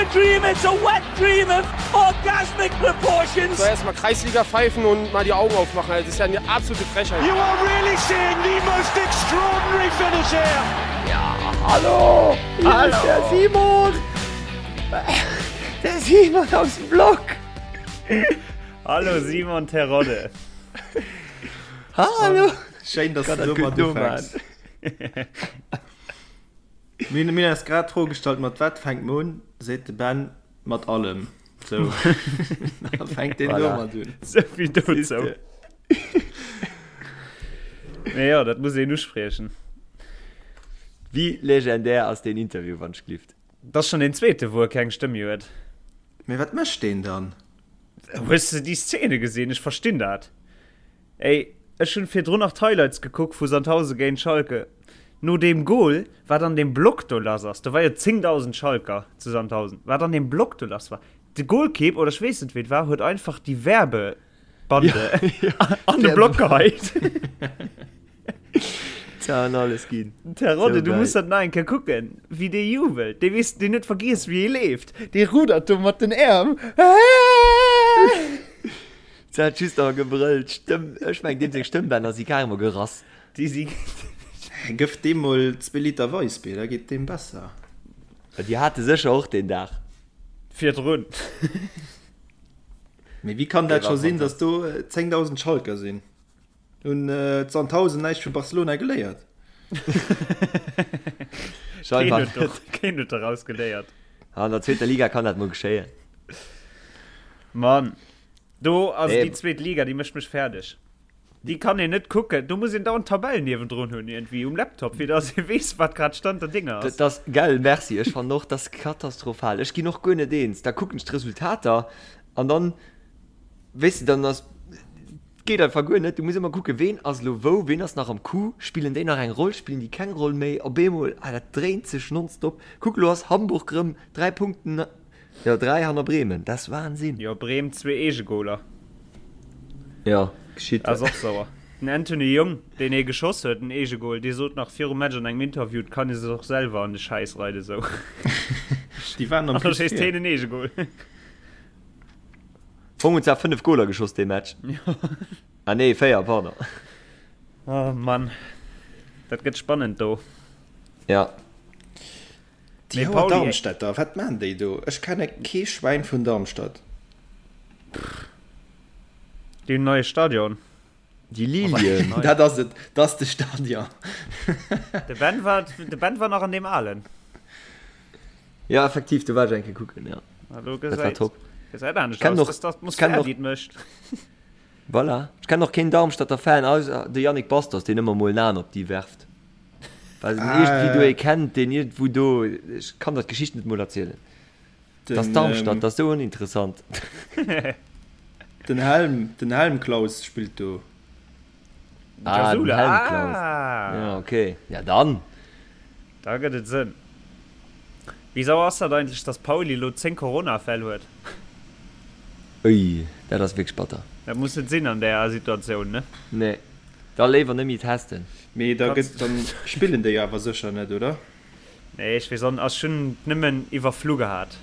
a dream, it's a wet dream of orgasmic proportions. So erstmal Kreisliga pfeifen und mal die Augen aufmachen. Das ist ja eine absolute Frechheit. You are really seeing the most extraordinary finish here. Ja, hallo! Hier hallo. ist der Simon! Der Simon aus dem Block! Hallo Simon Terodde! Hallo! Schéin, dass du domat ufänks. Mir hunn eis grad d'Fro gestallt, mat wat fänkt mer un? Seet de Ben, mat allem. Sou, da fänkt deen domat un. Souvill dozou. Mee jo, dat muss een uspriechen. Wéi legendär ass deen Interview, wann ech glift? Dat ass schonn deen zweete, wou e keng Stëmm méi huet. Mee wat mécht deen dann? Hues de déi Szene gesinn? Ech verstinn dat. Ey, ech hunn virdrun nach d'Highlights gekuckt vu Sandhausen géint Schalke. No deem Goal, wat an deem Block do lass ass, do war jo 10.000 Schalker zu Sandhausen, wat an deem Block do lass war, de Goalkeep, oder ech weess net wéi et war, huet einfach déi Werbebande an de Block geheit. Tja, an alles ginn. Terodde, du muss dat nach eng Kéier kucken, wéi dee jubelt. Dee weess, deen huet vergiess, wéi ee leeft. Dee rudert do mat den Äerm. Se hat just nach gebrëllt, Stëmm, ech meng deem seng Stëmmbänner si carrément gerass. Déi si. Gëff deem mol zwee Liter Weissbier, da geet deem besser. Déi hat e sécher och deen Dag. Virdrun. Mee wéi kann dat scho sinn, datt do 10.000 Schalker sinn? Hunn d'Sandhausen näischt vu Barcelona geléiert? Scheinbar net. Keen huet doraus geléiert. An der zweeter Liga kann dat mol geschéien. Mann. Do ass déi zweet Liga, déi mécht mech fäerdeg. Déi kann een net kucken. Do muss een dauernd d'Tabell niewendrun hunn iergendwéi um Laptop, fir dass ee weess, wat grad Stand der Dinge ass. Dat ass, gell, merci. Ech fannen och, dat ass katastrophal. Ech ginn och guer net eens. Da kucken ech d'Resultater an dann, weess de, dann ass, geet einfach guer net. Du muss ëmmer kucken, ween ass elo wou, ween ass nach am Coup, spillen déi nach eng Roll, spillen déi keng Roll méi. Op eemol, ah, dat dréint sech nonstop. Kuck, elo ass Hamburg erëm 3 Punkten Jo, 3 hanner Bremen, dat ass Wahnsinn. Jo, Bremen zwee Eegegoler. Jo, geschitt. Ass och sauer. Den Anthony Jung, deen ee geschoss huet, den Eegegol, dee sot nach virum Match an engem Interview, et kann ee sech och selwer an de Schäiss reiden, sou. Déi waren am An da Plus schéisst vir. heen en Eegegol. Fong hunn zwar 5 Goler geschoss dee Match. Ah nee, 4, pardon. Oh Mann, dat gëtt spannend do. Ja. Déi Mee hauer Pauli, Darmstädter, wat maan déi do? Ech kenne kee Schwäin vun Darmstadt. Déi hunn en neie Stadion. Déi Lilien. Dat ass et, dat ass de Stadion. De Ben war, de Ben war nach an deem alen. Ja, effektiv, do war ech eng Kéier kucken, ja. Ah, do Dat war gesäit, top. gesäit anescht Kenn aus. och, Dat ass d'Atmosphär, kenn och, déi et mécht. voilà. Ech kennen och keen Darmstadter Fan, ausser de Yannick Bastos, deen ëmmer mol en Aen op déi werft. Well en iergendwéi do ee kennt, deen iergendwou do, ech kann der d'Geschicht net mol erzielen. Dat ass Darmstadt, dat ass esou oninteressant. Den Helm, den Helmklaus spillt do. Ah, den Helmklaus. Ja, okay. Ja, dann. Da gëtt et Sënn. Wéi sauer ass dat eigentlech, dass Pauli elo 10 Corona-Fäll huet? Ui, dat ass wierklech batter. Dat muss net sinn an där Situatioun, ne? Nee. Da léiwer net méi testen. Mee da gëtt, dann spillen déi awer sécher net, oder? Nee, ech weess och net. Ech hunn et nëmmen iwwerflu gehat.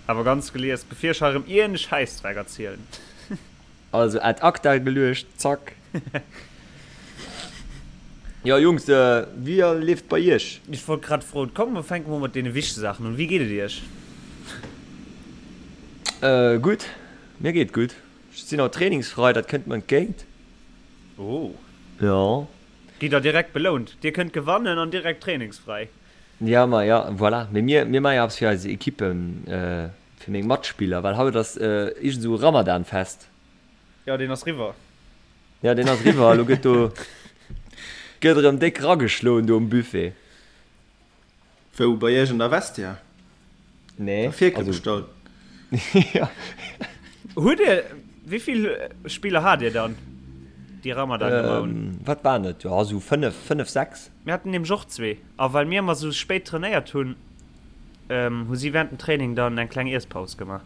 Awer ganz gelies, bevir ech hei erëm iergend e Schäissdreck erzielen. Also ad acta geluecht, zack. Jo Jungs, wéi leeft et bei iech? Ech wollt grad froen. Komm, mer fänke mol mat deene wichtege Saachen un. Wéi geet et iech? Gutt, mir geet gutt. Ech sinn haut trainingsfrei, dat kënnt mer entgéint. Oh. Jo. Gitt der direkt belount. Dir kënnt gewannen an direkt trainingsfräi. Ja, ma ja, voilà. Mee mir, mir maache jo eppes fir eis Ekippen, fir meng Matspiller, well haut ass iergend esou e Ramadan-Fest. Jo, deen ass riwwer. Ja, deen ass riwwer. Elo gëtt do, gëtt erëm déck rageschloen do um Buffet. Wou, bei iech an der Vestiaire? Nee. Der Fierkel also, bestallt? Ja. Hutt Dir, wéi vill Spiller hat Dir dann, déi Ramadan gemaach hunn? Ähm, wat waren et? Jo, esou 5, 5, 6. Mir haten nämlech och zwee. A well mir ëmmer esou spéit trainéiert hunn, ähm, hu si während dem Training dann eng kleng Iesspaus gemaach.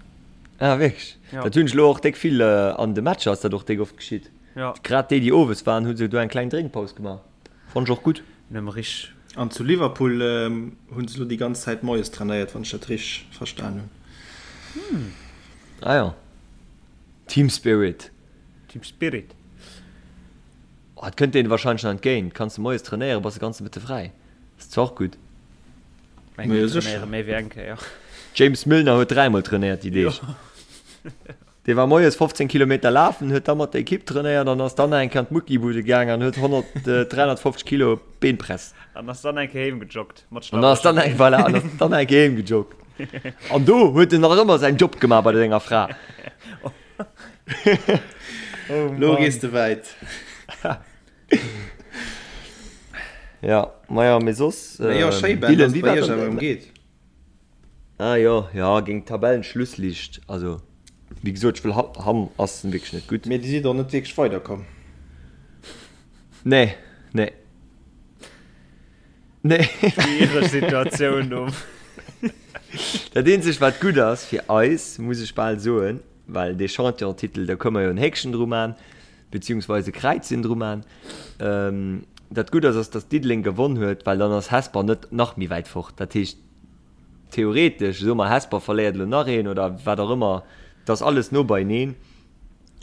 Ah, wierklech? Ja. Dat hunn ech elo och déck vill an de Matcher ass dat och déck oft geschitt. Ja. Grad déi, déi owes waren, hu se do eng kleng Drénkpaus gemaach. Fonnt ech och gutt. Nëmme rich. An zu Liverpool hunn se elo déi ganz Zäit moies trainéiert, wann ech dat richteg verstan hunn. Ah jo, Team Spirit. Team Spirit. Oh, et kënnt deene wahrscheinlech nach entgéint. Kanns de moies trainéieren, bass de ganze Mëtte fräi. Ass zwar och gutt. Meng mir trainéiere méi wéi eng Kéier. James Milner huet dräimol trainéiert déi Deeg. Dee war moies 15 Kilometer lafen, huet da mat der Ekipp trainéiert an ass dann nach eng Kéier an d'Muckibude gaang an huet 100, 350 Kilo Beenpress. An ass dann eng Kéier heem gejoggt mat An ass dann eng, voilà, an ass dann eng Kéier heem gejoggt. An do huet en nach ëmmer säin Job gemaach bei senger Fra. Oh Lo gees de wäit. Ja, maja, mee soss, Mee jo, schéi Ben, Dylan, dass wéi et bei war iech dann awer erëm geet. Ah jo, jo, géint Tabellenschlusslicht, also wéi gesot, ech wëll Hamm ass wierklech net gutt. Mee dir sidd och net wierklech weiderkomm. Nee, nee. Nee. Schwiereg Situatioun do. Dat eenzegt wat gutt ass fir eis, muss ech bal soen, well dee Championtitel, do kënne mer jo en Héckchen dru man, beziehungsweise e Kräizchen dru man, dat gutt ass, ass datt Diddeleng gewonn huet, well dann ass Hesper net nach méi wäit fort. Dat heescht theoretesch, soe mer Hesper verléiert elo nach een oder wat och ëmmer, et ass alles no beieneen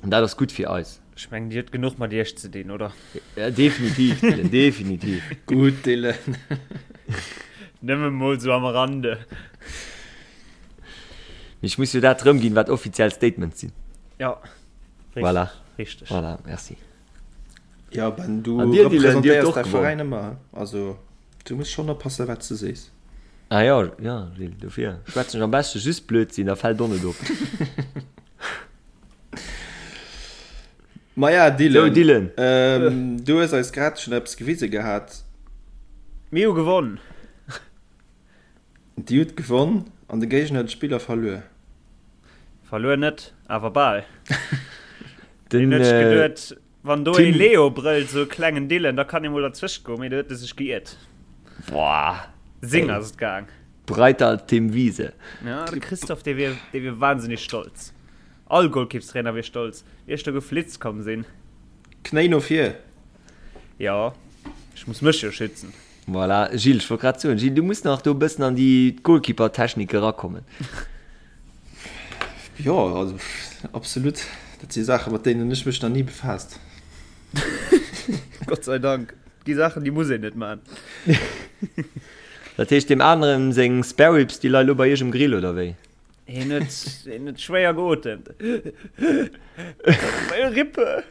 an dat ass gutt fir eis. Ech mengen, Dir hutt genuch mat Iech ze dinn, oder? Ja, definitiv, Dylan, definitiv. Gutt, Dylan. Nëmme mol sou am Rande. Mee ech muss jo dat erëmginn, wat offiziell Statements sinn. Ja, richteg. Voilà. Richteg. Voilà, merci. Ja, Ben, du An dir, Dylan, dir hutt representéiers och däi gewonnen. Veräin ëmmer, also du muss schonn oppassen, wat s de sees. Ah jo, jo, Gilles, dofir schwätzen ech am beschte just Blödsinn, da fält och net op. Maja, Dylan, Sou, Dylan. Ähm, du hues eis grad schonn eppes gewise gehat. Mir hu gewonn. Dir hutt gewonn an de Géigner huet Spiller verluer. Verluer net, awer bal. Den Deen huet sech geduet, wann do ee Tim. Leo brëllt, sou e klengen Dylan, da kann ee mol derzwëscht goen, mee do huet e sech geiert. Boah, Sing ey. ass et gaang. Breiter als Tim Wiese. Ja, de Christophe, dee wier, dee wier wahnsinnig stolz. All Golkippstrainer wier stolz, wéi ech do geflitzt komm sinn. Knéi no vir. Jo, ech muss mech jo schützen. Voilà, Gilles, ech wollt grad soen, Gilles, du muss nach do e bëssen an déi Goalkeeper-Technik erakommen. Jo, also absolut. Dat si Saachen, mat deenen ech mech nach ni befaasst. Gott sei Dank. Et gi Saachen, déi muss een net man. Dat heescht, deem aneren seng Spare Ribs, déi leie lo bei iech um Grill, oder wéi? Hien huet, hien huet schwéier geotemt. Meine Rippe!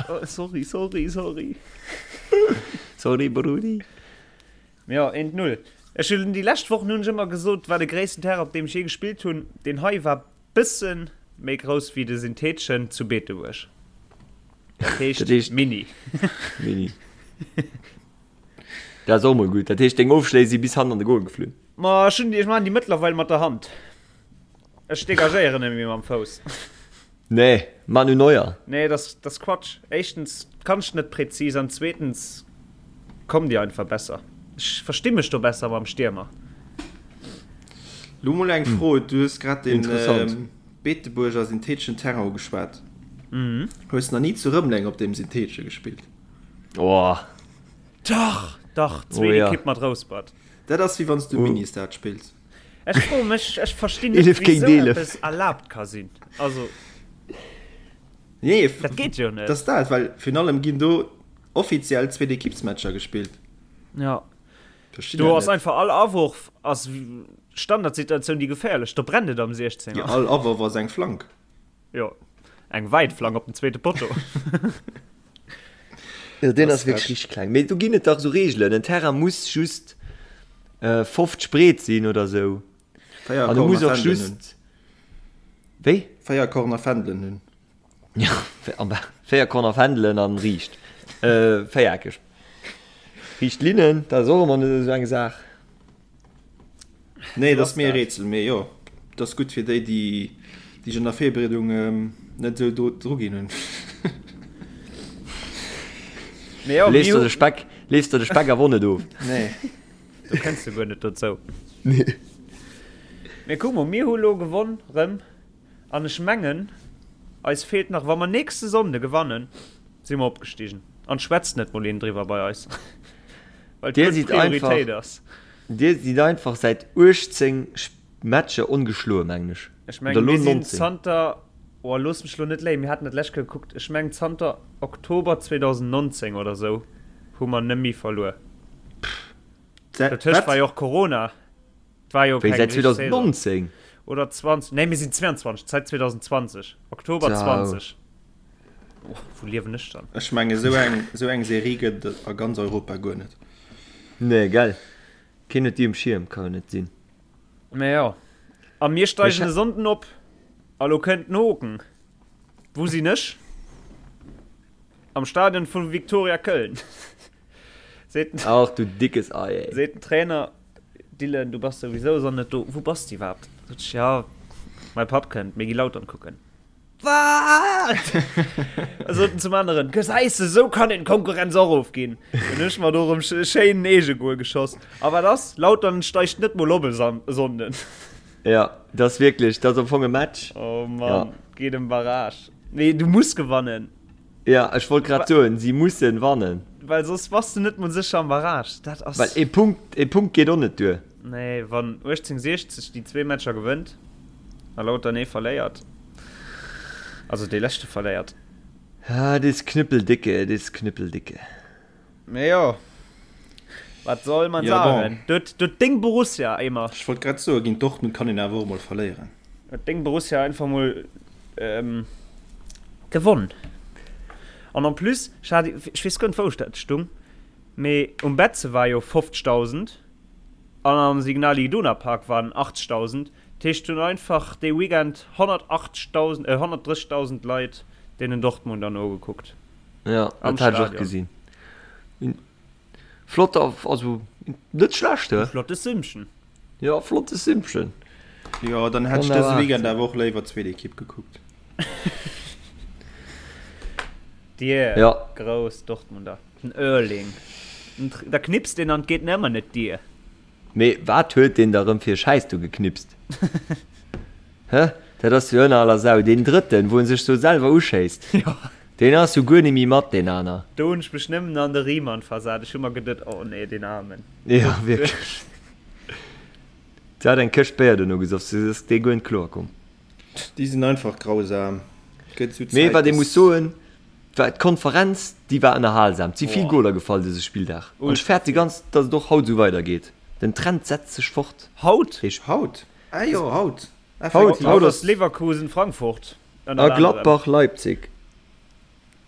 Oh, sorry, sorry, sorry. Sorry, Brudi. Ja, 1-0. Ech hunn déi lescht Wochen hunn ech ëmmer gesot, war de gréissten Terrain, op deem ech jee gespillt hunn. Deen hei war bësse méi grouss wéi de syntheteschen zu Beetebuerg. Dat heescht, Dat heescht mini. Mini. Dat ass och mol gutt. Dat heescht, deng Ofschléi si bis hannen an de Goal geflunn. Ma ech hunn déi, ech maachen déi mëttlerweil mat der Hand. Ech degagéieren net méi mam Fouss. Nee, Manu Neuer. Nee, dat ass, dat ass Quatsch. Éischtens kann ech net präzis an zweetens kommen déi einfach besser. Ech versti mech do besser mam Stiermer. Lo mol eng Fro, du hues grad den Interessant. Beetebuerger syntheteschen Terrain ugeschwat. Hues nach ni zu Rëmeleng op deem syntheetesche gespillt? Oh. Dach, dach, Oh zweet ja. Ekipp mat Rouspert. Dat ass wéi wann s du Ministad spills. Ech froe mech, ech verstinn net, 11 wéi géint sou 11. eppes erlaabt ka sinn. Also, Nee, dat geet jo net. dat ass dat, well virun allem ginn do offiziell Zweetekippsmatcher gespillt. Ja. Verstinn Do dat ass net. einfach all Awurf ass Standardsituatioun, déi geféierlech. Do brennt et am Jo, 16er. all Awurf ass eng Flank. Jo, eng wäit Flank op den zweete Potto. Jo, deen ass Das wierklech frech. richteg kleng. Mee do ginn et dach esou Reegelen, en Terrain muss just 50 breet sinn oder sou. 4 An e muss Corner och Fändelen hunn. just. Wéi? 4 Corner Fändelen hunn. Ja, 4 Corner Fändelen an riicht. Véiereckeg. Riicht Linnen, dat ass och ëmmer net esou eng Saach. Nee, dat ass mir e Rätsel, mee jo, dat ass gutt fir déi, déi déi an der Virbereedung net esou do dru ginn hunn. Mee jo, Lees der de Speck, lees der de Speck awer och net of. Nee. Do kënns de guer net dozou. Nee. Mee kuck mol, mir hu lo gewonn rëm an ech mengen, eis feelt nach, wa mer nächste Sonnde gewannen, si mer opgestigen. An schwätzt net mol een driwwer bei eis. Well Dir et sidd Prioritéit einfach, ass. dir sidd einfach säit 18 Matcher ongeschloe mengen ech. Ech Oder mengen, lo mir sinn 19. zanter, oh looss mech lo net léien, mir haten dat lescht Kéier gekuckt, ech mengen zanter Oktober 2019 oder sou hu mer net méi verluer. Dotëscht war jo och Corona. Et war jo Wéi keng säit richteg Saison. 2019? Oder 20, nee mir sinn 22, säit 2020, Oktober Ciao. 20. Oh, wou liewen ech dann? Ech menge sou eng, sou eng Serie gëtt et a ganz Europa guer net. Nee, gell? Keen huet déi um Schierm, ka jo net sinn. Mä jo. A mir steigen e Sonnden op. A lo kënnt den Hoken. Wou sinn ech? Am Stadion vu Viktoria Köln. Seet den, Ach du dickes Ei, ey. seet den Trainer, Dylan, du bass souwisou e Sonnden net do. Wou bass de iwwerhaapt? Sot ech, ja, mäi Papp kënnt, mir gi Lautern kucken. Wat? Sot en zum aneren, Gesäis de, sou kann een d'Konkurrenz och ofginn. Dann hunn ech mer do erëm schéin en Eegegoal geschoss. A wat ass? Lautern steigt net mol op e Sonnden. Ja, dat ass wierklech, dat ass am Fong e Match. Oh Mann, geet ëm Barrage. Nee, du muss gewannen. Ja, ech wollt grad soen, si mussen wannen. Well soss bass du net mol sécher am Barrage. Dat ass. Well ee Punkt, ee Punkt geet och net duer. Nee, wann 1860 déi zwee Matcher gewënnt a Lautern ee verléiert, also dee leschte verléiert. Ah, et is knüppeldicke, et is knüppeldicke. Mee jo, wat soll man Ja, bon. sagen? Do huet deng Borussia émmer. Ech wollt grad soen, géint Dortmund kann een awer och mol verléieren. Huet deng Borussia einfach mol gewonn. An en plus, ech hat, ech weess guer net wou ech dat stung, mee um Betze war jo 50.000 an am Signal Iduna Park waren 80.000. Dat heescht, hunn einfach dee Weekend 180.000, 130.000 Leit deenen Dortmunder nogekuckt. Ja, Am dat hat ech och Stadion. gesinn. Flott, also net schlecht, he? Flotte Sümmchen. Ja, flotte Sümmchen. Jo, dann hätt ech dëse Weekend awer och léiwer d'zweet Ekipp gekuckt. Dir ja. grouss Dortmunder, den Erling, da knipst een an et geet nëmmer net dir. Mee wat huet deen da rëm fir e Schäiss do geknipst? Hä? Dat ass jo ënner aller Sau. Deen drëtten, wou en sech do selwer uschéisst. Jo. Deen ass jo guer nemmi mat, deen aner. Do hunn ech mech nëmmen an de Riemann versat. Ech hu mer geduet, oh nee, deen Aarmen. Jo, wierklech. Se hat eng Këscht Béier dono gesoff, se ass dee guer net kloer komm. Déi sinn einfach grausam. Gëtt esou Mee Zäit, wat ee muss dass. soen, war d'Konferenz, déi war ënnerhalsam. Et si vill Boah. Goler gefall dëse Spilldag. An ech Ultra fäerte vill. ganz, dass et och haut esou weidergeet. Den Trend setzt sech fort. Haut? Dee. Haut? Ah jo, haut. Haut, Effektiv. haut Haut ass. ass Leverkusen-Frankfurt. A Gladbach Leipzig.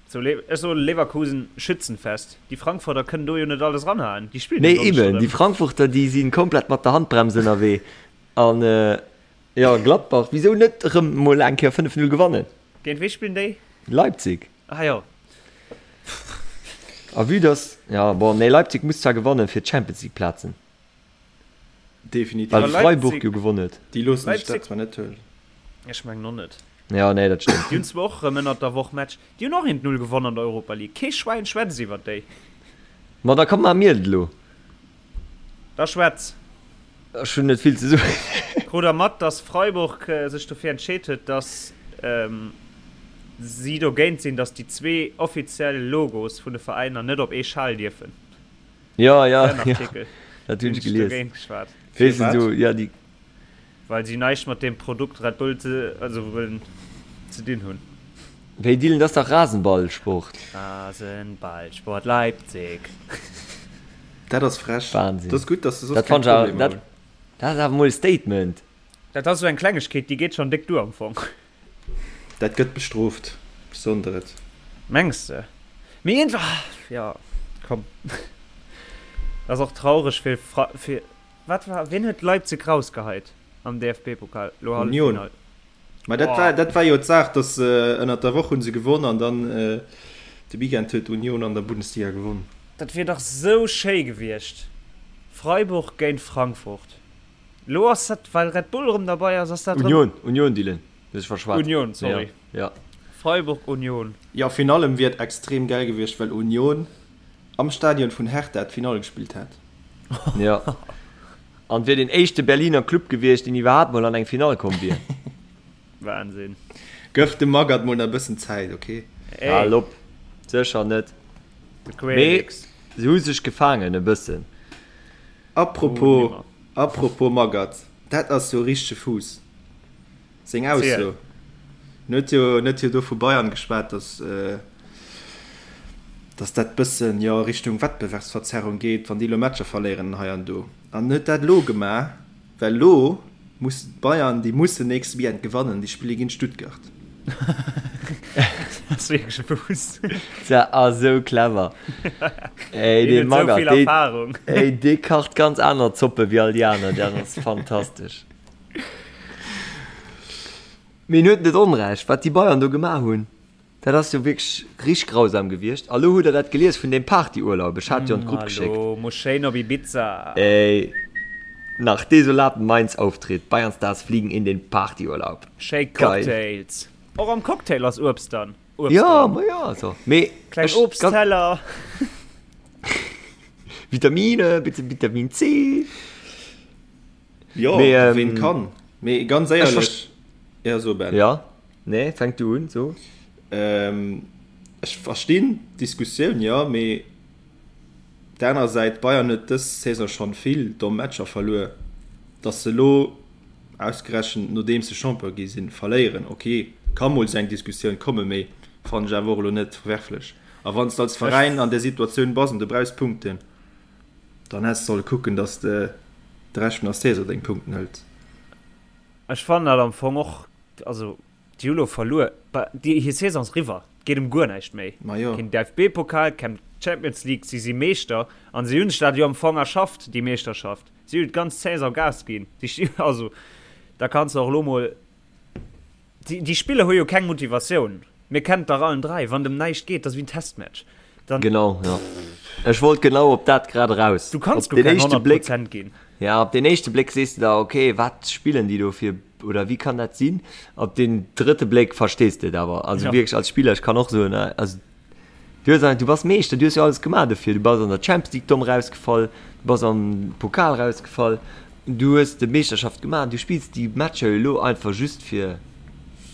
So, ech soen Leverkusen Schützenfest. Déi Frankfurter kënnen do jo net alles ranhaen. Déi spillen Nee jo eben, erëm. déi Frankfurter déi si komplett mat der Handbrems ënnerwee. An jo Gladbach, wisou net erëm mol eng Kéier 5, 0 gewannen? Géint wee spillen déi? Leipzig. Ah jo. A vue dass, ja bon, nee Leipzig muss zwar gewannen fir d'Champions League Plazen. Definitiv. Well Leipzig- Freiburg jo gewonnen huet. Déi loossen sech Leipzig- dat zwar net huelen. Ech mengen och net. Ja, nee, dat stëmmt. Déi hunn zwar och erëm ënnert der Woch Match. Déi hunn och 1-0 gewonnen an der Europa League. Kee Schwäin schwätzt iwwert déi. Ma da komm, maache mir et elo. Da schwätz. Ech hunn net vill ze soen. Krut der mat, dass Freiburg sech dofir entscheet huet, dass si dogéint sinn, dass déi zwee offiziell Logos vun de Veräiner net op ee Schal dierfen? Ja, ja, Den ja. Artikel. Dat hunn ech Hunn ech gelies. dogéint geschwat. Weess de Firwat? so, ja, déi. Well si näischt mat deem Produkt Red Bull ze, also wëllen ze dinn hunn. Wéi Dylan, dat ass dach Rasenballsport. Rasenballsport Leipzig. Dat ass frech. Wahnsinn. Dat ass gutt, dass se soss Dat keng fannt ech awer, Problemer dat, hunn. dat ass awer mol e Statement. Dat ass esou eng Klengegkeet, déi geet schonn déck duer am Fong. Dat gëtt bestrooft, ech soen der et. Mengs de? Mee iergendwa, jo, komm. Dat ass och traureg fir, fir, wat war, wien huet Leipzig rausgeheit am DFB-Pokal, lo Union. Halleffinall? Mä dat war, dat war jo d'Saach, dass se ënnert der Woch hu se gewonn an dann de Weekend huet Union an der Bundesliga gewonn. Dat wier dach sou schéi gewiescht, Freiburg géint Frankfurt. Lo ass dat, well Red Bull erëm derbei ass, ass dat erëm. Union, Union, Dylan, du hues dech verschwat. Union, sorry. Ja, ja. Freiburg, Union. Jo, virun allem wier et extrem gäil gewiescht, well Union am Stadion vun Hertha d'Finall gespillt hätt. Ja. An wier deen éischte Berliner Club gewiescht, deen iwwerhaapt mol an eng Finall komm wier. Wahnsinn. Gëff dem Magath mol nach e bëssen Zäit, ok? Ey. Hal op. Sécher net. De Mee Querix. Se hu sech gefaangen e bëssen. Apropos, apropos Magath, dat ass jo e richtege Fuuss. Seng Ausso. En huet jo, en huet jo do vu Bayern geschwat, datt, datt dat bëssen, jo, Richtung Wettbewerbsverzerrung geet, wann déi elo Matcher verléieren hei an do. An en huet dat elo gemaach, well elo muss d'Bayern, déi mussen nächste Weekend gewannen, déi spille géint Stuttgart. Dat ass wierklech e Fuuss. Dat ass esou clever. Ey, dee Magath, dee, ey, dee kacht ganz aner Zoppe wéi all déi aner. Dat ass fantastesch. Mee en huet net Onrecht, wat déi Bayern do gemaach hunn, dat ass jo wierklech richteg grausam gewiescht. A lo hutt der dat gelies vun deem Partyurlaub, ech hat jo an d'Grupp geschéckt. Elo muss schéin op Ibiza. Ey, nach desolaten Mainz-Auftritt, Bayern-Stars fliegen in den Partyurlaub. Schéi Cocktails. Och am Cocktail ass Uebst dann. Uebst Jo, ma jo, also, mee Kleng ech, Obstteller. Vitamine, bitte Vitamin C. Jo, Mee, ähm, ween kann. Mee ganz ech éierlech, ja so Ben. Ja, nee, fänk du un, so. Ähm, ech verstinn d'Diskussioun, jo, mee op der anerer Säit, Bayern huet dës Saison schonn vill domm Matcher verluer. Datt se elo ausgerechent nodeems se Champion gi sinn, verléieren, ok, ka mol sou eng Diskussioun kommen, mee fannen ech awer och elo net verwerflech. A wann s de als Veräin an där Situatioun bass an du brauchs Punkten, Dann häss de solle kucken, dass de de Rescht vun der Saison deng Punkten hëls. Ech fannen dat am Fong och, also déi hu lo verluer, déi hir Saison ass eriwwer, et geet ëm guer näischt méi. Ma jo. Keen DFB-Pokal, keng Champions League, si si Meeschter an si hunn sech dat jo am Fong erschafft, déi Meeschterschaft. Si hunn d'ganz Saison Gas ginn, si sti, also da kanns de och elo mol. Déi Spiller hu jo keng Motivatioun. Mir kennen et dach allen 3, wann et ëm näischt geet, dat ass wéi en Testmatch. Dann. Genau, jo. Ech wollt genau op dat grad eraus. Du kanns guer keng 100 Prozent ginn. Ja, op den éischte Bléck sees de der, okay, wat spillen déi do fir, oder wéi kann dat sinn? Op den drëtte Bléck verstees de et awer. Also wierklech als Spiller, ech kann och soen, also Du hues du bass Meeschter, du hues jo alles gemaach dofir. Du bass an der Champions League domm rausgefall, du bass am Pokal rausgefall, du hues de Meeschterschaft gemaach, du spills déi Matcher jo elo einfach just fir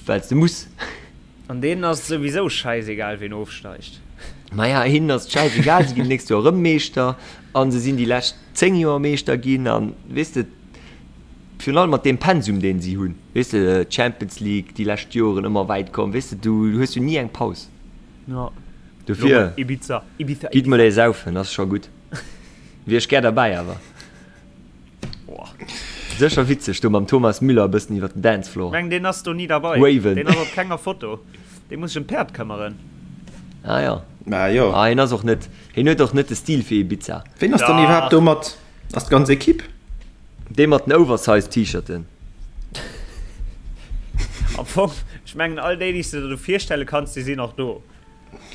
well s de muss. An deenen ass et souwisou schäisegal ween ofsteigt. Maja, hinnen ass et schäisegal, si ginn d'nächst Joer erëm Meeschter a se sinn déi lescht 10 Joer Meeschter ginn an weess de, virun allem mat deem Pensum deen si hunn, weess de, Champions League déi lescht Joren ëmmer wäit komm, weess de, du hues jo ni eng Paus. Ja. Dofir, Ibiza, Ibiza, gitt mol ee saufen, ass scho gutt. Wier ech gär derbäi awer. Boah. Sécher witzeg do mam Thomas Müller e bëssen iwwer den Dancefloor. Meng deen ass do ni derbei. Waven. Deen ass op kenger Foto. Dee muss sech ëm d'Päerd këmmeren. Ah ja. Ma jo. Ah, hien ass och net, hien huet och net de Stil fir Ibiza. Ween ass dann iwwerhaapt do mat? Ass d'ganz Equipe? Dee mat den Oversize T-Shirten. Am Fong, ech mengen all déi, déi s de der do virstelle kanns, déi sinn och do.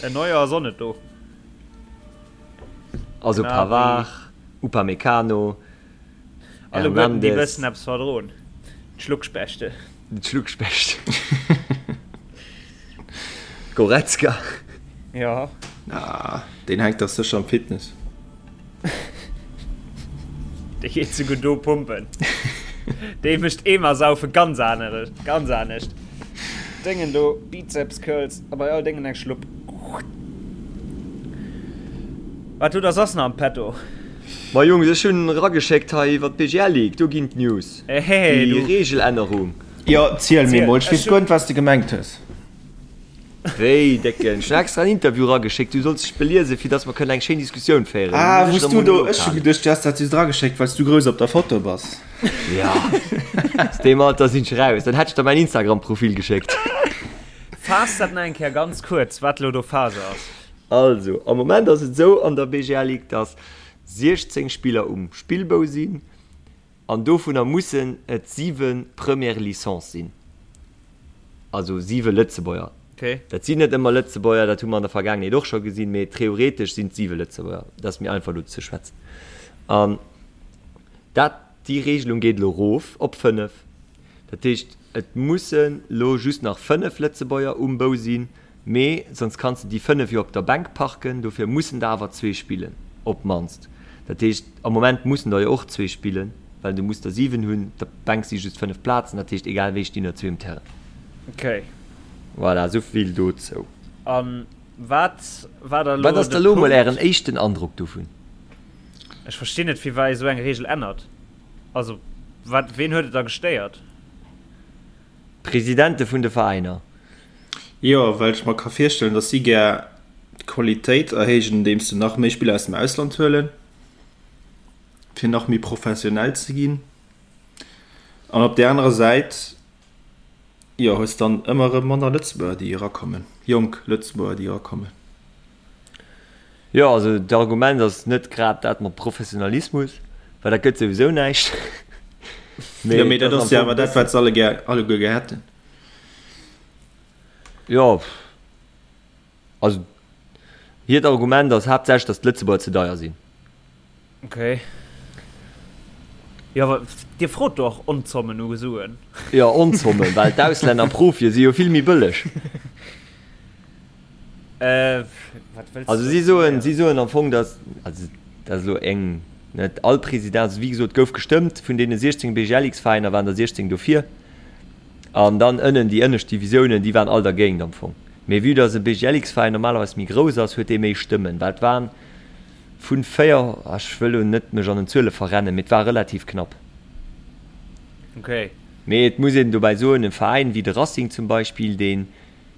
En Neuer ass och net do. Also Pavard, Upamecano, Alleguerten déi bëssen eppes verdroen. D'Schluckspechte. D'Schluckspecht. Goretzka. Jo. Ah, deen hänkt dach sécher am Fitness. Dee geet souguer do pumpen. Dee mécht Eemer saufe ganz aner, ganz anescht. Déngen do, Bizeps Curls a bei all Déngen eng Schlupp. Wat hutt der soss nach am Petto? Ma Jungs, ech hunn erageschéckt hei iwwer d'BGL League, do ginn d'News. Ehe, Déi Reegelännerung. Jo, ziel mir mol, ech weess guer net, wat s de gemengt hues. Wéi, Décken? Ech hunn extra en Interview erageschéckt, du solls dech beliesen, fir dass mer kënnen eng schéin Diskussioun féieren. Ah, wou s du do, ech hu geduecht, du häss dat just erageschéckt, well s du grouss op der Foto bass. Ja, aus deem Alter sinn ech eraus. Dann hätt ech der mäin Instagram-Profil geschéckt. Faass dat nach eng Kéier ganz kuerz, wat elo do Phase ass. Also, am Moment ass et esou an der BGL Ligue, dass 16 Spiller um Spillbou sinn. An dovunner mussen et 7 Première Licence sinn, also 7 Lëtzebuerger. Dat sinn net ëmmer Lëtzebuerger, dat hu mer an der Vergaangenheet och scho gesinn, mee theoretesch sinn et 7 Lëtzebuerger. Dat ass méi einfach elo ze schwätzen. An dat, déi Regelung geet elo erof op 5. Dat heescht, et mussen elo just nach 5 Lëtzebuerger um Bou sinn, Mee sonst kanns de déi 5 jo op der Bänk parken, dofir mussen der awer zwee spillen, op d'mannst. Dat heescht, am Moment mussen der jo och zwee spillen, well du muss der 7 hunn, op der Bänk si just 5 Plazen, dat heescht egal wéi stinn der zwee um Terrain. Ok. Voilà, esou vill dozou. An. Wat war da elo Wat ass da de lo mol Punkt? ären éischten Androck dovun? Ech verstinn net firwat ee sou eng Reegel ännert. Also wat, ween huet et da gestéiert? D'Presidente vun de Veräiner. Jo, well ech mer ka virstellen, datt si gär d'Qualitéit erhéijen, andeems se nach méi Spiller aus dem Ausland huelen, fir nach méi professionell ze ginn. An op där anerer Säit, jo, hues dann ëmmer erëm manner Lëtzebuerger, déi erakommen, jonk Lëtzebuerger, déi erakommen. Jo, also d'Argument ass net grad dat mat Professionalismus, well dat gëtt souwisou näischt. Mee jo, mee dat ass jo awer dat, wat se alle gär, alleguer gär hätten. Jo, also hiert Argument ass haaptsächlech, datt d'Lëtzebuerger ze deier sinn. Ok. Jo, awer Dir frot do och Onzommen u Suen. Jo, Onzommen, well d'Auslänner Profie si jo vill méi bëlleg. Äh, wat wëlls Also de si soen, si héieren? soen am Fong, datt, also dat ass elo eng, net all President, also wéi gesot, gouf gestëmmt, vun deene 16 BGLX-Veräiner waren der 16 dofir an dann ënnen déi ënnescht Divisiounen, déi waren all dergéint am Fong. Mee vue datt e BGLX-Veräin normalerweis méi grouss ass, huet dee méi Stëmmen, well et waren vun 4, ech wëll elo net mech an den Zuele verrennen, mee et war relativ knapp. Okay. Mee et muss een dobäi soen, e Veräin wéi de Racing zum Beispill, deen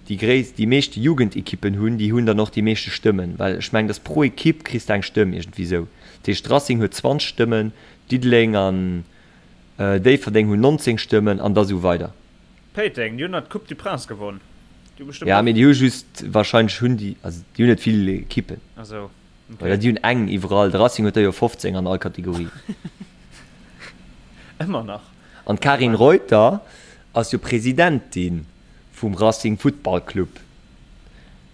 déi gréisst, déi meeschte Jugendekippen hunn, déi hunn dann och déi meeschte Stëmmen, well ech mengen, dass pro Ekipp kriss de eng Stëmm, iergendwéi esou. Dat heescht, Racing huet 20 Stëmmen, Diddeleng an Déifferdeng hunn 19 Stëmmen an da sou weider. Péiteng, déi hunn nach d'Coupe du Prince gewonn, déi hu bestëmmt Ja, mee och. déi hu just, wahrscheinlech hunn déi, also déi hunn net vill Ekippen. Ah sou, okay. Oder déi hunn eng iwwerall, de Racing huet der jo 15 an all Kategorie. Ëmmer nach. An d'Karin Reuter ass jo Presidentin vum Racing Futtball Club.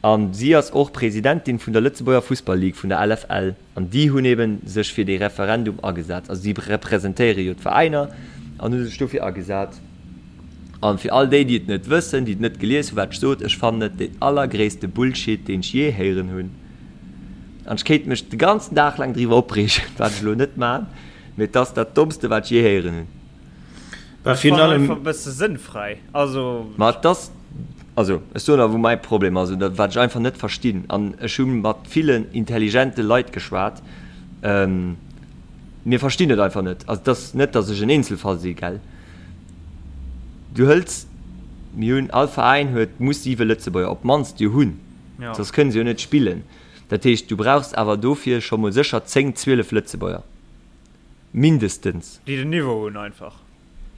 An si ass och Presidentin vun der Lëtzebuerger Fussball-Ligue, vun der LFL. An déi hunn eben sech fir dee Referendum agesat. Also si representéiere jo d'Veräiner an hu sech dofir agesat. An fir all déi, déi et net wëssen, déi et net gelies hunn, wat ech sot, ech fannen et den allergréisste Bullshit, deen ech jee héieren hunn. An ech kéint mech de ganzen Dag laang driwwer opreegen, wat ech elo net man, mee et ass dat Dommste, wat ech jee héieren hunn. Bah, virun allem. Einfach e bësse sënnfräi. Also. Ma et ass, also ech soen der wou mäi Problem ass oder wat ech einfach net verstinn, an ech hu mat villen intelligente Leit geschwat, mir verstinn et einfach net. Also et ass net, datt ech en Eenzelfall si, gell. Du hëls, mir hunn, all Veräin huet, muss siwe Lëtzebuerger op d'mannst jo hunn, soss kënne se jo net spillen. Dat heescht, du brauchs awer dofir scho mol sécher 10, 12 Lëtzebuerger. Mindestens. Déi den Niveau hunn einfach.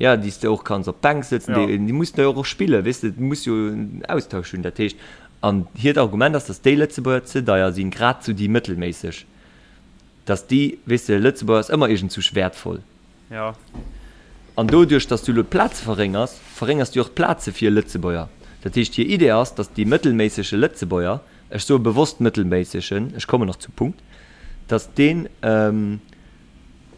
Ja, déi s de och kanns op d'Bänk sëtzen, déi, déi mussen jo och spillen, weess de, du muss jo en Austausch hunn. Dat heescht, an hiert Argument ass, datt déi Lëtzebuerger ze deier sinn, grad sou déi mëttelméisseg, datt déi, weess de, Lëtzebuerger ass ëmmer iergendzousch wäertvoll. Ja. An doduerch, datt s du elo d'Plaze verréngers, verréngers du och d'Plaze fir Lëtzebuerger. Dat heescht, hir Idee ass, datt dee mëttelméissege Lëtzebuerger, ech soe bewosst mëttelméissegen, ech kommen nach zum Punkt, datt deen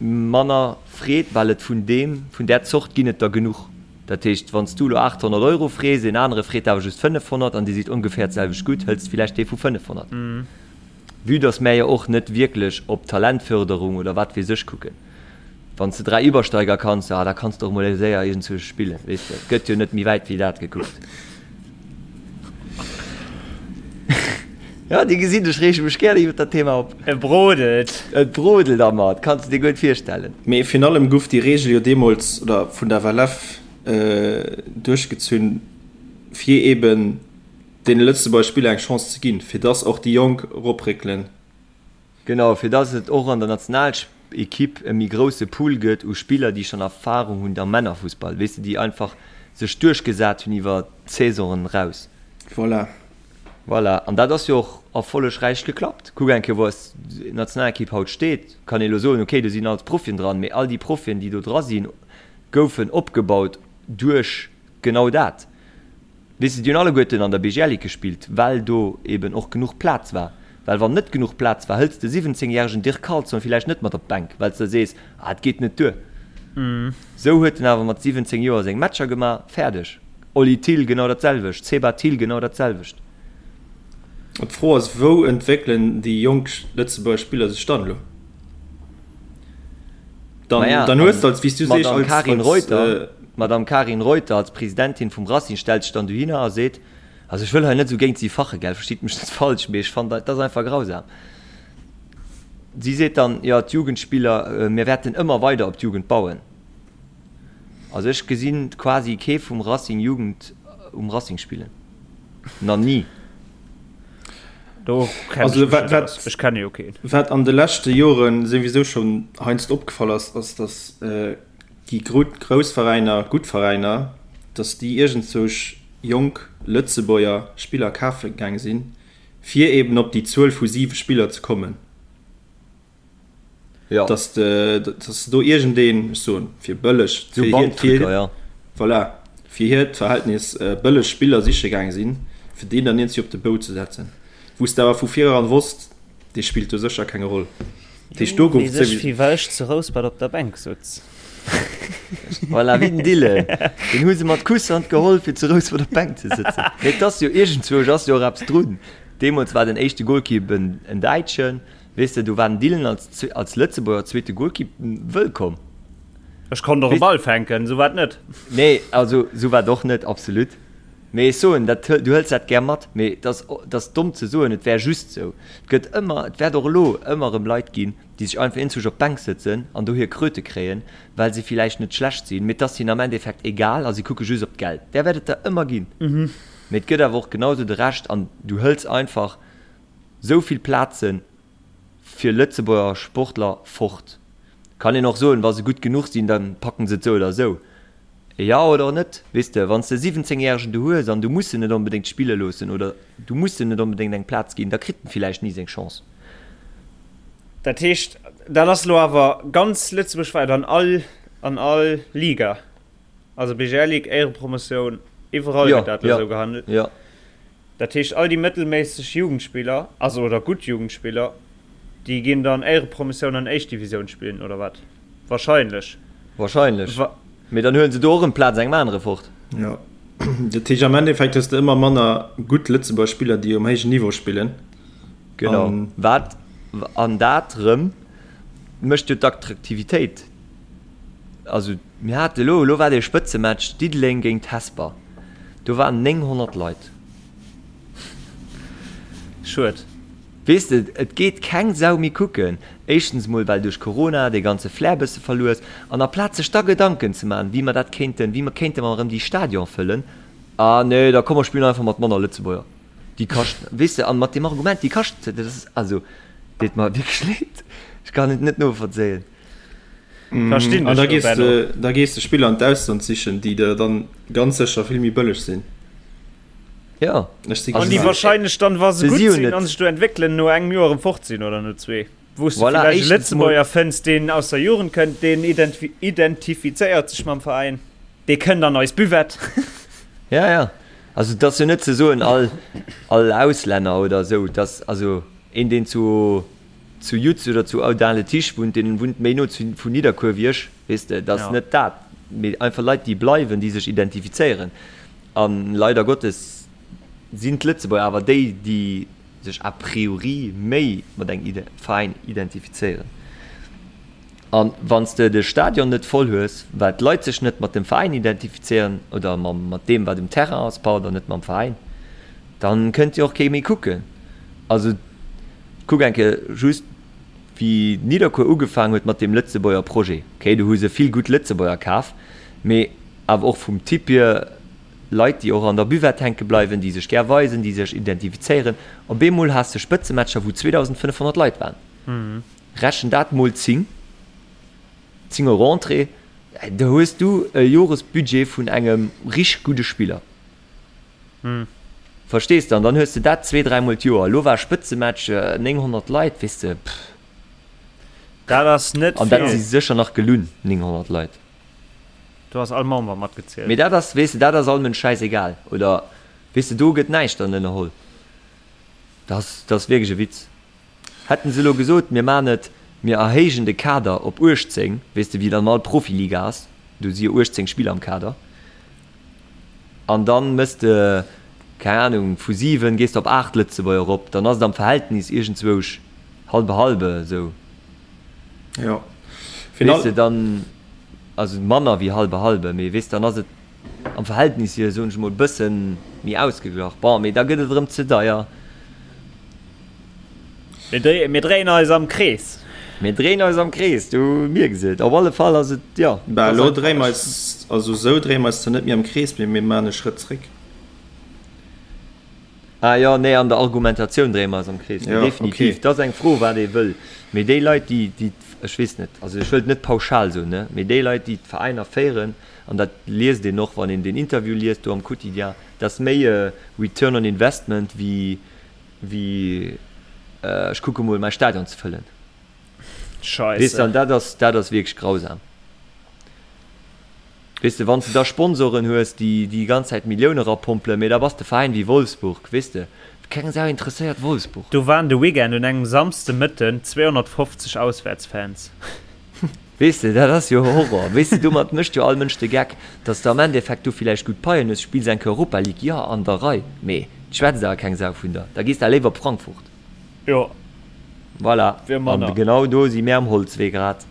manner freet, well et vun deem, vun där Zort ginn et der genuch. Dat heescht, wann s du elo 800 Euro frees, een anere freet awer just 500 an dir sidd ongeféier d'selwecht gutt, hëls de villäicht dee vu 500. Vue datt mär jo och net wierklech op Talentförderung oder wat weess ech kucken. Wann s de 3 Übersteiger kanns, ah, da kanns de och mol séier iergendzwousch spillen, weess de. Et gëtt jo net méi wäit wéi dat gekuckt. Ja, Dir gesitt, ech reege mech gären iwwer dat Thema op. Et brodelt. Et brodelt a mer, et kanns de dir guer net virstellen. Mee virun allem guff déi Reegel jo deemools, oder vun der FLF duerchgezunn, fir eben deene Lëtzebuerger Spiller eng Chance ze ginn, fir dass och déi Jonk eropréckelen. Genau, fir dass et och an der Nationalequipe e méi grousse Pool gëtt u Spiller, déi schonn Erfarung hunn am Männerfussball, weess de, déi einfach sech duerchgesat hunn iwwer d'Saisonen eraus. Voilà. Voilà, an dat ass jo och erfollegräich geklappt. Kuck eng Kéier, wou eis Nationalequipe haut steet. Kann ee elo soen, okay, do sinn alles Profien dran, mee all déi Profien, déi do dra sinn, goufen opgebaut duerch genau dat. Weess de, déi hunn alleguerten an der BGL-Ligue gespillt, well do eben och genuch Plaz war. Well wann net genuch Plaz war, hëls de 17 järegen Dirk Carlson villäicht net mat op d'Bänk, well s de sees, ah, et geet net duer. Sou huet en awer mat 17 Joer seng Matcher gemaach, fäerdeg. Oli Thill genau dat selwecht, Seba Thill genau dat selwecht. D'Fro ass, wou entwéckelen déi jonk Lëtzebuerger Spiller sech dann elo? Dann, Naja, dann hues de als, wéi s du sees, D'Madame als, Karin als, Reuter, d'Madame Karin Reuter als Presidentin vum Racing stellt sech dann dohinner a seet, Also ech wëll hei net esou géint si fache, gell, verstitt mech net falsch, mee ech fannen dat ass einfach grausam. Si seet dann, jo d'Jugendspiller, mir wäerten ëmmer weider op d'Jugend bauen. Also ech gesinn quasi kee vum Racing Jugend um Racing spillen. Na ni. Do kenn Also ech mech wat, net wat, aus. Ech kenne jo keen. wat an de leschte Joren souwisou schonn heiansdo opgefall ass, ass datt déi grouss Veräiner, gutt Veräiner, datt déi iergendzousch jonk Lëtzebuerger Spiller kafe gaang sinn, fir eben op déi Zuel vu siwe Spiller ze kommen. Ja. Dass de, dass de do iergendeen, ech soen, fir bëlleg, So fir hiert, Bankdrücker, fir, ja. voilà, fir hiert Verhältnis bëlleg Spiller siche gaang sinn, fir deen dann iergendwéi op de Bou ze setzen, wou s de awer vu vireran wosst, dee spillt do sécher keng Roll. Dat heescht, do gouf Weess ech, souwisou. wéi well ech zu Rouspert op der Bänk sutz. Voilà, wéi den Dylan. Deen hu se mat Kusshand geholl, fir zu Rouspert op d'Bänk ze sëtzen. Mee et ass jo, iergendzwousch ass jo och eppes drun. Deemools war den éischte Golkipp en Däitschen. Weess de, do war den Dylan als, als Lëtzebuerger zweete Golkipp wëllkomm. Ech konnt och e Ball fänken, sou war et net. Nee, also sou war et och net, absolut. Mee ech soen, dat, du hëls dat gär mat, mee et ass, et ass domm ze soen, et wär just sou. Et gëtt ëmmer, et wäert och elo ëmmer erëm Leit ginn, déi sech einfach eenzesch op d'Bänk sëtzen an do hir Kröte kréien, well se villäicht net schlecht sinn, mee et ass hinnen am Endeffekt egal a si kucke just op d'Geld. Där wäert et der ëmmer ginn. Mee et gëtt awer och genau sou de Rescht an du hëls einfach Sou vill Plaze fir Lëtzebuerger Sportler fort. Kann een och soen, wa se gutt genuch sinn, da packen se et sou oder sou. Jo oder net? Weess de, wann s de e 17 Järegen do hues an du muss en net onbedéngt spille loossen oder du muss en net onbedéngt eng Plaz ginn, da kritt en villäicht ni seng Chance. Dat heescht, dat ass elo awer ganz lëtzebuergwäit an all, an all Liga, also BGL Ligue, Éierepromotioun, iwwerall gëtt dat elo esou gehandelt? Jo, jo. Dat heescht all déi mëttelméisseg Jugendspiller, also oder gutt Jugendspiller, déi ginn dann Éierepromotioun an éischt Divisioun spillen, oder wat? Wahrscheinlech. Wahrscheinlech. Mee dann huelen se do och erëm d'Plaz engem anere fort. Jo. Dat heescht am Endeffekt hues de ëmmer manner gutt Lëtzebuerger Spiller, déi um héijen Niveau spillen. Genau. Wat, an dat erëm mécht jo d'Attraktivitéit. Also mir hate elo, elo war dee Spëtzematch Diddeleng géint Hesper, do waren 900 Leit. Schued. Weess de, et geet keng Sau méi kucken. Éischtens emol well duerch Corona dee ganze Flair bësse verluer ass. An aplaz sech da Gedanken ze maachen, wéi mer dat kéinten, wéi mer kéinte mer erëm déi Stadion fëllen, ah nee, da komm mer spillen einfach mat manner Lëtzebuerger. Déi kaschten, weess de, an mat deem Argument, déi kaschten, dat ass, also deet mer wierklech leed, ech kann et net novollzéien. Verstinn An dech da do, gees Benno. de, da gees de Spiller an d'Ausland sichen, déi der dann ganz sécher vill méi bëlleg sinn. Jo. Ech si An déi gespaant. wahrscheinlech dann, wa se Se gutt si jo sinn net. an sech do entwéckelen, no engem Joer erëm fort sinn oder no zwee. Wou s de Voilà, villäicht e éischtens mol. Lëtzebuerger fënns, deen aus der Jugend kënnt, deen identifizéiert sech mam Veräin, dee kënnt an eis Buvette. Ja, ja. Also et ass jo net ze soen, all, all Auslänner oder esou, dass, also een, deen zu. zu Yutz oder zu Audun-le-Tiche wunnt, deen wunnt méi no zu vun Nidderkuer wéi ech, weess de, et ass net dat, mee einfach Leit, déi bleiwen, déi sech identifizéieren. A leider Gottes sinn d'Lëtzebuerger awer déi, déi sech a priori méi mat engem Veräin identifizéieren. A wann s de de Stadion net voll hues, well d'Leit sech net mat dem Veräin identifizéieren oder mam mat deem, wat um Terrain ass, pardon, net mam Veräin, dann kënnt jo och kee méi kucken. Also Kuck eng Kéier just wéi Nidderkuer ugefaang huet mat deem Lëtzebuerger Projet. Ok, do hu se vill gutt Lëtzebuerger kaf, mee awer och vum Typ hier Leit, déi och an der Buvette hänke bleiwen, déi sech gär weisen, déi sech identifizéieren. Op eemol has de Spëtzematcher, wou 2.500 Leit waren. Rechen dat mol 10, 10 Euro Entrée, do hues du e Joresbudget vun engem richteg gudde Spiller. Verstees de? An dann hues de dat zwee, dräimol d'Joer. Elo war Spëtzematch, 900 Leit, weess de, pff. Dat ass net An dat vill. si sécher nach gelunn, 900 Leit. Do ass all Member matgezielt. Mee dat ass, weess de, dat ass all Mënsch schäisegal. Oder, weess de, do gëtt näischt dann ënnerholl. Dat ass, dat ass wierklech e Witz. Hätten se elo gesot, mir man et, mir erhéijen de Kader op 18, weess de, wéi et an all Profiliga ass, do si jo 18 Spiller am Kader. An dann mëss de, keng Ahnung, vu 7 gees de op 8 Lëtzebuerger erop, dann ass et am Verhältnis iergendzwousch halbe halbe esou. Jo. Weess de, dann, also manner wéi halbe halbe, mee weess, dann ass et. Am Verhältnis hier, soen ech emol, bësse méi ausgeglach. Bon, mee da gëtt et erëm ze deier. Mir dréien eis am Krees. Mir dréien eis am Krees, du mierks et. Op alle Fall ass et, jo. Bah, elo dréie mer eis, also esou dréie mer eis zwar net méi am Krees, mee mir maachen e Schrëtt zréck. Ah jo, nee, an der Argumentatioun dréie mer eis am Krees. Mee definitiv, et ass eng Fro, wat ee wëll. Mee déi Leit, déi, déi, ech weess net, also ech wëllt net pauschal soen, ne, mee déi Leit, déi d'Veräiner féieren, an dat liest een och, wann een deen Interview liest do am Quotidien, dat ass méi e Return on Investment wéi, wéi ech kucke mol mäi Stadion ze fëllen. Scheisse. Weess de, an dat ass, dat ass wierklech grausam. Weess de, wann s de da Sponsoren hues, déi déi ganz Zäit Millioune rapompelen, mee da bass de Veräin wéi Wolfsburg, weess de, keng Sau interesséiert Wolfsburg. Do waren de Weekend un engem Samsdemëtten 250 Auswäertsfans. Weess de, dat ass jo Horror. Weess de, domat mécht jo all Mënsch de Geck, datt s de am Endeffekt do villäicht gutt Paien hues, spills eng Kéier Europa League, jo, an der Rei, mee et schwätzt awer keng Sau vun der. Da gees de léiwer op Frankfurt. Jo. Voilà. Wier manner. An genau do si mär am Holzwee grad.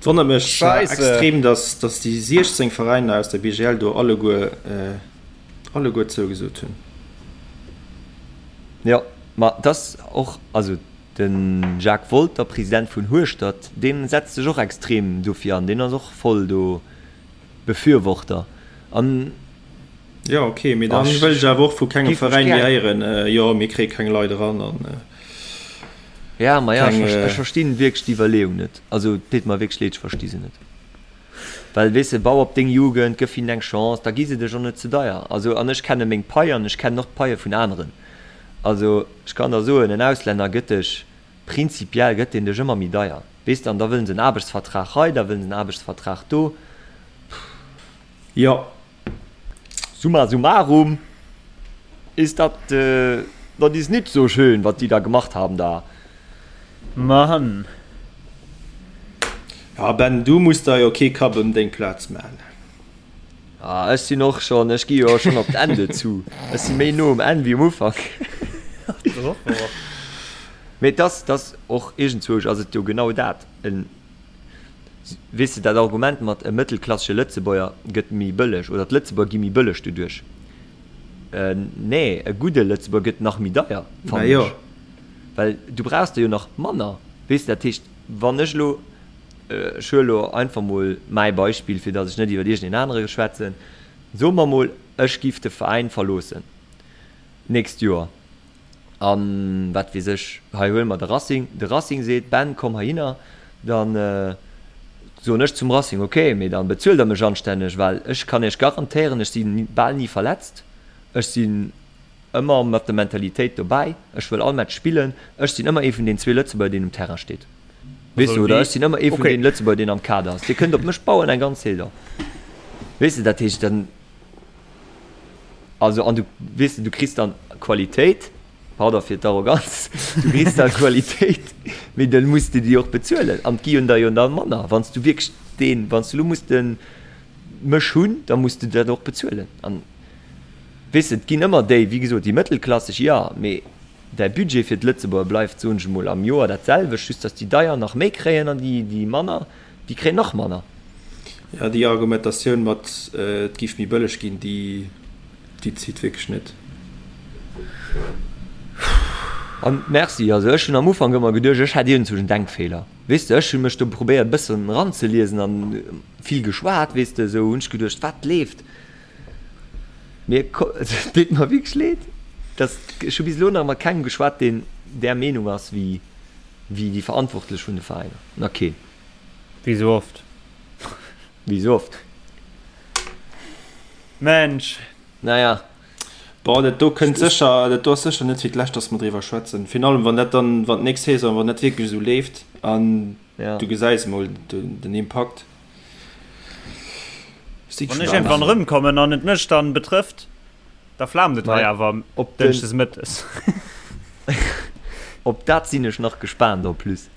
Et wonnert mech zwar extrem, datt déi 16 Veräiner aus der BGL do alleguer, alleguer zougesot hunn. Jo, ma et ass och, also De Jacques Wolter, President vun Hueschtert, dee setzt sech och extrem dofir an, deen ass och voll do Befürworter an. Jo ok, mee dann wëll ech awer och vu kengem Veräin méi héieren, jo mir kréie keng Leit eran an Ja, ma ja, ech verstinn wierklech d'Iwwerleeung net. Also et deet mer wierklech leed, ech versti se net. Well weess de, bau op deng Jugend, gëff hinnen eng Chance, da gi se dech och net ze deier. Also an ech kenne meng Pai an ech kennen och d'Paie vun aneren. Also, ech kann der soen, en Auslänner gëtt dech, prinzipiell gëtt deen dech ëmmer méi deier, weess de, an da wëllen se en Aarbechtsvertrag hei, da wëllen se en Aarbechtsvertrag do. Jo. Summa summarum ist dat, dat ist nit so schön, wat die da gemacht haben da. Mann. Ja Ben, du muss der jo kee Kapp ëm deng Plaz man. Ah, ech sinn och schonn, ech gi jo schonn op d'Enn dozou. Ech si méi no um Enn wéi um Ufank. Mee et ass, et ass och iergendzwousch ass et jo genau dat. En, weess de, dat Argument mat e mëttelklassege Lëtzebuerger gëtt méi bëlleg oder d'Lëtzebuerger gi méi bëlleg doduerch. Nee, e gudde Lëtzebuerger gëtt nach méi deier, fannen ech. Well du brauchs der jo nach manner, weess de. Dat heescht, wann ech elo Ech huele lo einfach mol mäi Beispill, fir datt ech net iwwer iergendeen anere schwätzen. Soe mer mol, ech giff de Veräin verloossen d'nächst Joer an, wat weess ech, hei huele mer de Racing, de Racing seet, Ben, komm heihinner, da soen ech zum Racing, ok, mee da bezuelt der mech anstänneg, well ech kann iech garantéieren, ech si bal ni verletzt, ech sinn ëmmer mat der Mentalitéit dobäi, ech wëll all Match spillen, ech sinn ëmmer ee vun den zwee Lëtzebuerger, deen um Terrain steet. Weess du, oder ech sinn ëmmer ee vun deenen Lëtzebuerger, deen am Kader ass. Dir kënnt op mech bauen eng ganz Saison. Weess de, dat heescht dann, also an du, weess de, du kriss dann Qualitéit, pardon fir d'Arroganz, du kriss dann Qualitéit, mee dann muss de déi och bezuelen an et gi jo der jo dann manner. Wann s du wierklech deen, wann s du elo muss de mech hunn, da muss de dat och bezuelen. An weess de, et ginn ëmmer déi, wéi gesot, déi mëttelklasseg, jo, mee Däi Budget fir d'Lëtzebuerger bleift, soen ech emol, am Joer dat selwecht, just dass déi deier nach méi kréien an déi, déi manner, déi kréien nach manner. Jo, déi Argumentatioun mat et giff méi bëlleg ginn, déi, déi zitt wierklech net. An merci, also ech hunn am Ufank ëmmer geduecht, ech hätt iergendzwousch en Denkfeeler, weess de, ech hu mech do probéiert e bëssen eranzeliesen an vill geschwat, weess de, esou hunn ech geduecht, wat leeft? Mir et deet mer wierklech leed, dass ech hu bis elo nach mat kengem geschwat, deen där Meenung ass wéi wéi déi Verantwortlech vun de Veräiner. Nach keen. Wéi sou oft. Wéi sou oft. Mensch. Naja. Bon, dat do kënnt sécher, dat do ass sécher net fir d'lescht, dass mer driwwer schwätzen. Virun allem, wann dat dann, wann d'nächst Saison, wann dat wierklech esou leeft an du gesäis emol den Impakt. Wann ech iergendwann erëmkommen an et mech dann betrëfft, da flaamt et hei awer op dënschdes mëttes. Op dat sinn ech nach gespaant en plus,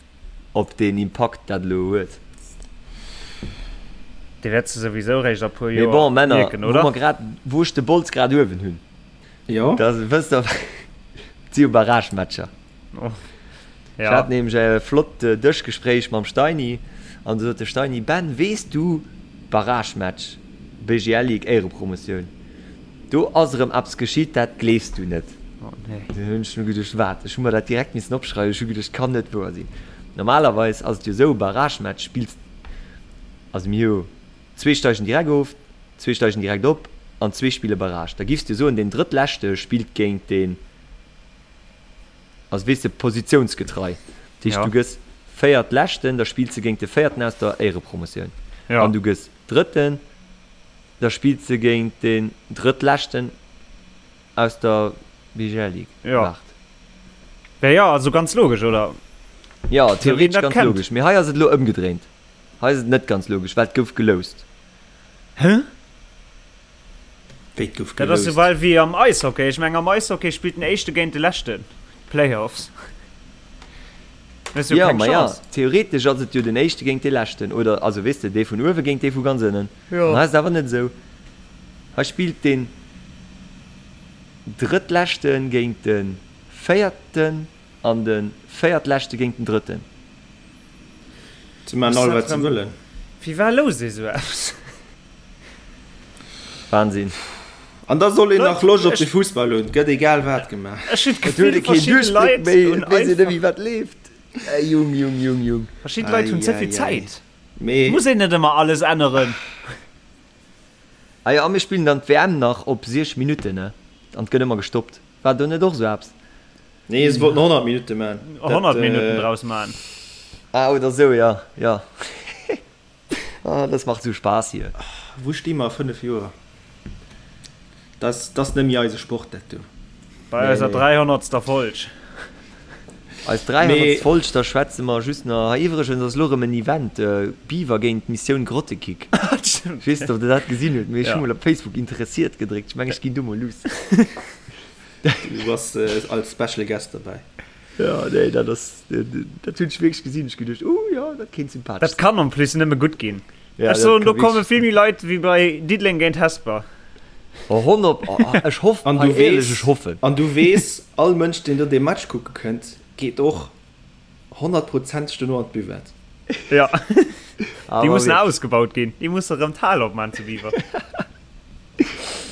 op deen Impakt dat elo huet. Dee wäerts de souwisou réischt a puer Mee Joer bon, Männer, mierken, wou oder? mer grad, wou ech de Bols grad uewen hunn, Jo. da wësst der, et si jo Barragematcher. Ech hat nämlech e flott Dëschgespréich mam Steini an du sot de Steini, Ben, weess du, Barragematch. BGL Ligue Éierepromotioun. Do ass erëm eppes geschitt, dat gleefs du net. Oh nee. Do hunn ech mir geduecht, wat? Ech hu mer dat direkt missen opschreiwen. Ech hu geduecht, kann net wouer sinn. Normalerweis ass et jo esou, Barragematch spills, also mir hu zwee steigen direkt of, zwee steigen direkt op an zwee spille Barrage. Da giffs du soen, deen Drëttleschte spillt géint deen, also weess de, positiounsgetrei. Dat heescht, du gëss Véiertleschten, da spills de géint de Véierten aus der Éierepromotioun. An du gëss Drëtten. Da spillt se géint den Drëttleschten aus der BGL Ligue. Jo. Waart. Ja, ja, also ganz logesch, oder? Jo, theoretesch ganz logesch. Mee hei ass et elo ëmgedréint. Hei ass et net ganz logesch, well et gouf geloust. Hä? Wéi et gouf geloust? Dat ass esou wéi am Eishockey. Ech mengen, am Eishockey spillt den Éischte géint de Leschten. D'Playoffs. Jo, ma jo, theoretesch ass et jo den Éischte géint dee Leschten, oder? Also, weess de, dee vun uewe géint dee vu ganz ënnen. An hei ass et awer net esou. Hei spillt deen Drëttleschte géint de Véierten an de Véiertleschte géint den Drëtten. Se maachen all, wat se wëllen. Wéi war lousst ee sou eppes? Wahnsinn. An da soll een nach Loscht op de Fussball hunn. Et gëtt egal wat gemaach. Ech hunn Et huet d'Gefill, ee keen verschidde Duerchbléck Leit méi, hunn et weess een net einfach. méi wat leeft. Ey Jung, Jung, Jung, Jung. Verschidde Leit hunn ze vill Ei, ei, ei. Zäit. Mee. Muss een net ëmmer alles änneren. Ah jo, a mir spillen dann d'WM nach op 6 Minutten, ne? An et gëtt ëmmer gestoppt. War do net och sou eppes? Nee, se wollten 100 Minutte man. 100 Minutten draus man. Ah, oder sou, ja, ja. Ah, das macht sou Spaß hier. Wou sti mer a 5 Joer? Dat ass net méi eise Sport, dat do. Bei eiser 300. Folg. Eis 300. Folg, da schwätze mer just nach. Hei iwwregens ass elo erëm en Event, Beaver géint Missioun Grottekick. Ech weess net, ob der dat gesinn hutt, mee ech hu mol op Facebook interessiert gedréckt. Ech mengen, ech ginn do mol luuss. Du bass als Special Guest dobäi. Jo, nee, dat ass, dat hunn ech wierklech gesinn. Ech geduecht, oh jo, dat kéint sympathesch Dat kann en plus nëmme gutt ginn. Ja, ech soen, do komme vill méi Leit wéi bei Diddeleng géint Hesper. Oh, 100, oh, ech hoffen, an du weess, ech hoffen. An du weess, all Mënsch, deen do dee Match kucke kënnt, geet och honnertprozenteg dono an d'Buvette. Ja, déi mussen ausgebaut ginn. Déi musse rëm d'Hal opman zu Biwer.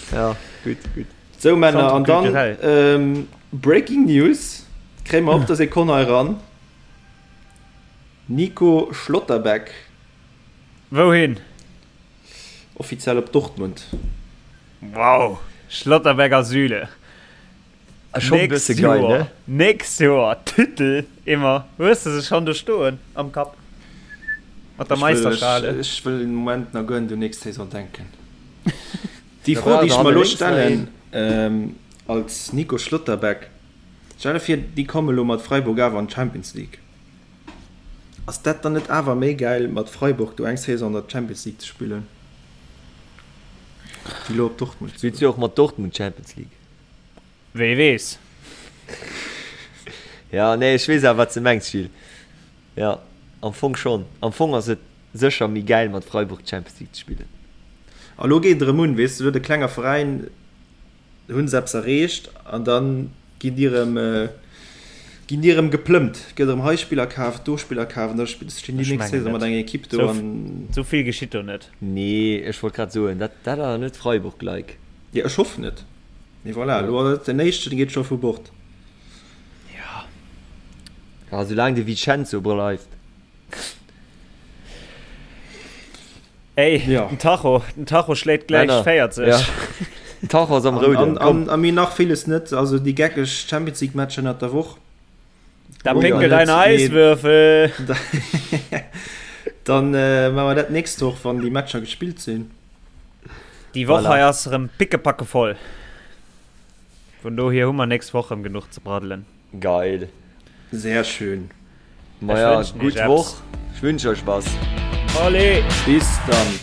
Ja, gutt, gutt. Sou Männer, an dann Breaking News, kréie mer op der Sekonn hei eran, Nico Schlotterbeck. Wouhin? Offiziell op Dortmund. Wow, Schlotterbeck a Süle. Schonn e bësse geil, ne? Nächst Joer Titel immer. Hues de se schonn do stoen am Kapp? Mat der Meisterschale? Ech wëll den Moment nach guer net un nächst Saison denken. Déi Fro, déi ech mer elo stellen als Nico Schlotterbeck, Stell der vir, déi komme elo mat Freiburg awer an d'Champions League. Ass dat dann net awer méi gäil, mat Freiburg do eng Saison an der Champions League ze spillen, wéi elo op Dortmund ze goen? Spills jo och mat Dortmund Champions League. Wee weess. Ja, nee, ech weess awer, wat s de mengs, Gilles. Jo, am Fong schonn. Am Fong ass et sécher méi gäil mat Freiburg d'Champions League ze spillen. A lo geet et erëm un, weess de, lo huet e klenger Veräin, hu se eppes erreecht an da ginn déi erëm, ginn déi erëm geplëmmt, gëtt erëm hei Spiller kaf, do Spiller kaf an da stinn déi nächst Saison mat enger Ekipp do an. Sou vill geschitt do net. Nee, ech wollt grad soen, dat dat ass net Freiburg-like. Jo, ech hoffen et. Mee voilà, elo ass et den éischten, dee geet scho vu Bord. Ja. Ja, soulaang de Vincenzo bleift. Ey, ja. den Tacho, den Tacho schléit gläich 40. Ja. Den Tacho ass am Rouden. An, an, an mir nach villes net, also déi geckeg Champions League Matcher ënnert der Woch. Da pinkelt ein Eiswürfel. Dann äh, machen wir dat nächst Woch, wann déi Matcher gespillt sinn. Déi Woch hei ass erëm pickepacke voll. Vun dohier hu mer nächst Woch erëm genuch ze braddelen. Geil. Sehr schön. Maja, gutt Woch. Ech wünsch euch was. Allez! Bis dann.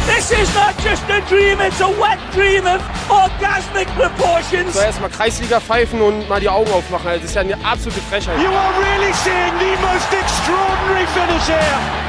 This is not just a dream, it's a wet dream of orgasmic proportions. So erstmal Kreisliga pfeifen und mal die Augen aufmachen. Das ist ja eine absolute Frechheit. You are really seeing the most extraordinary finish here.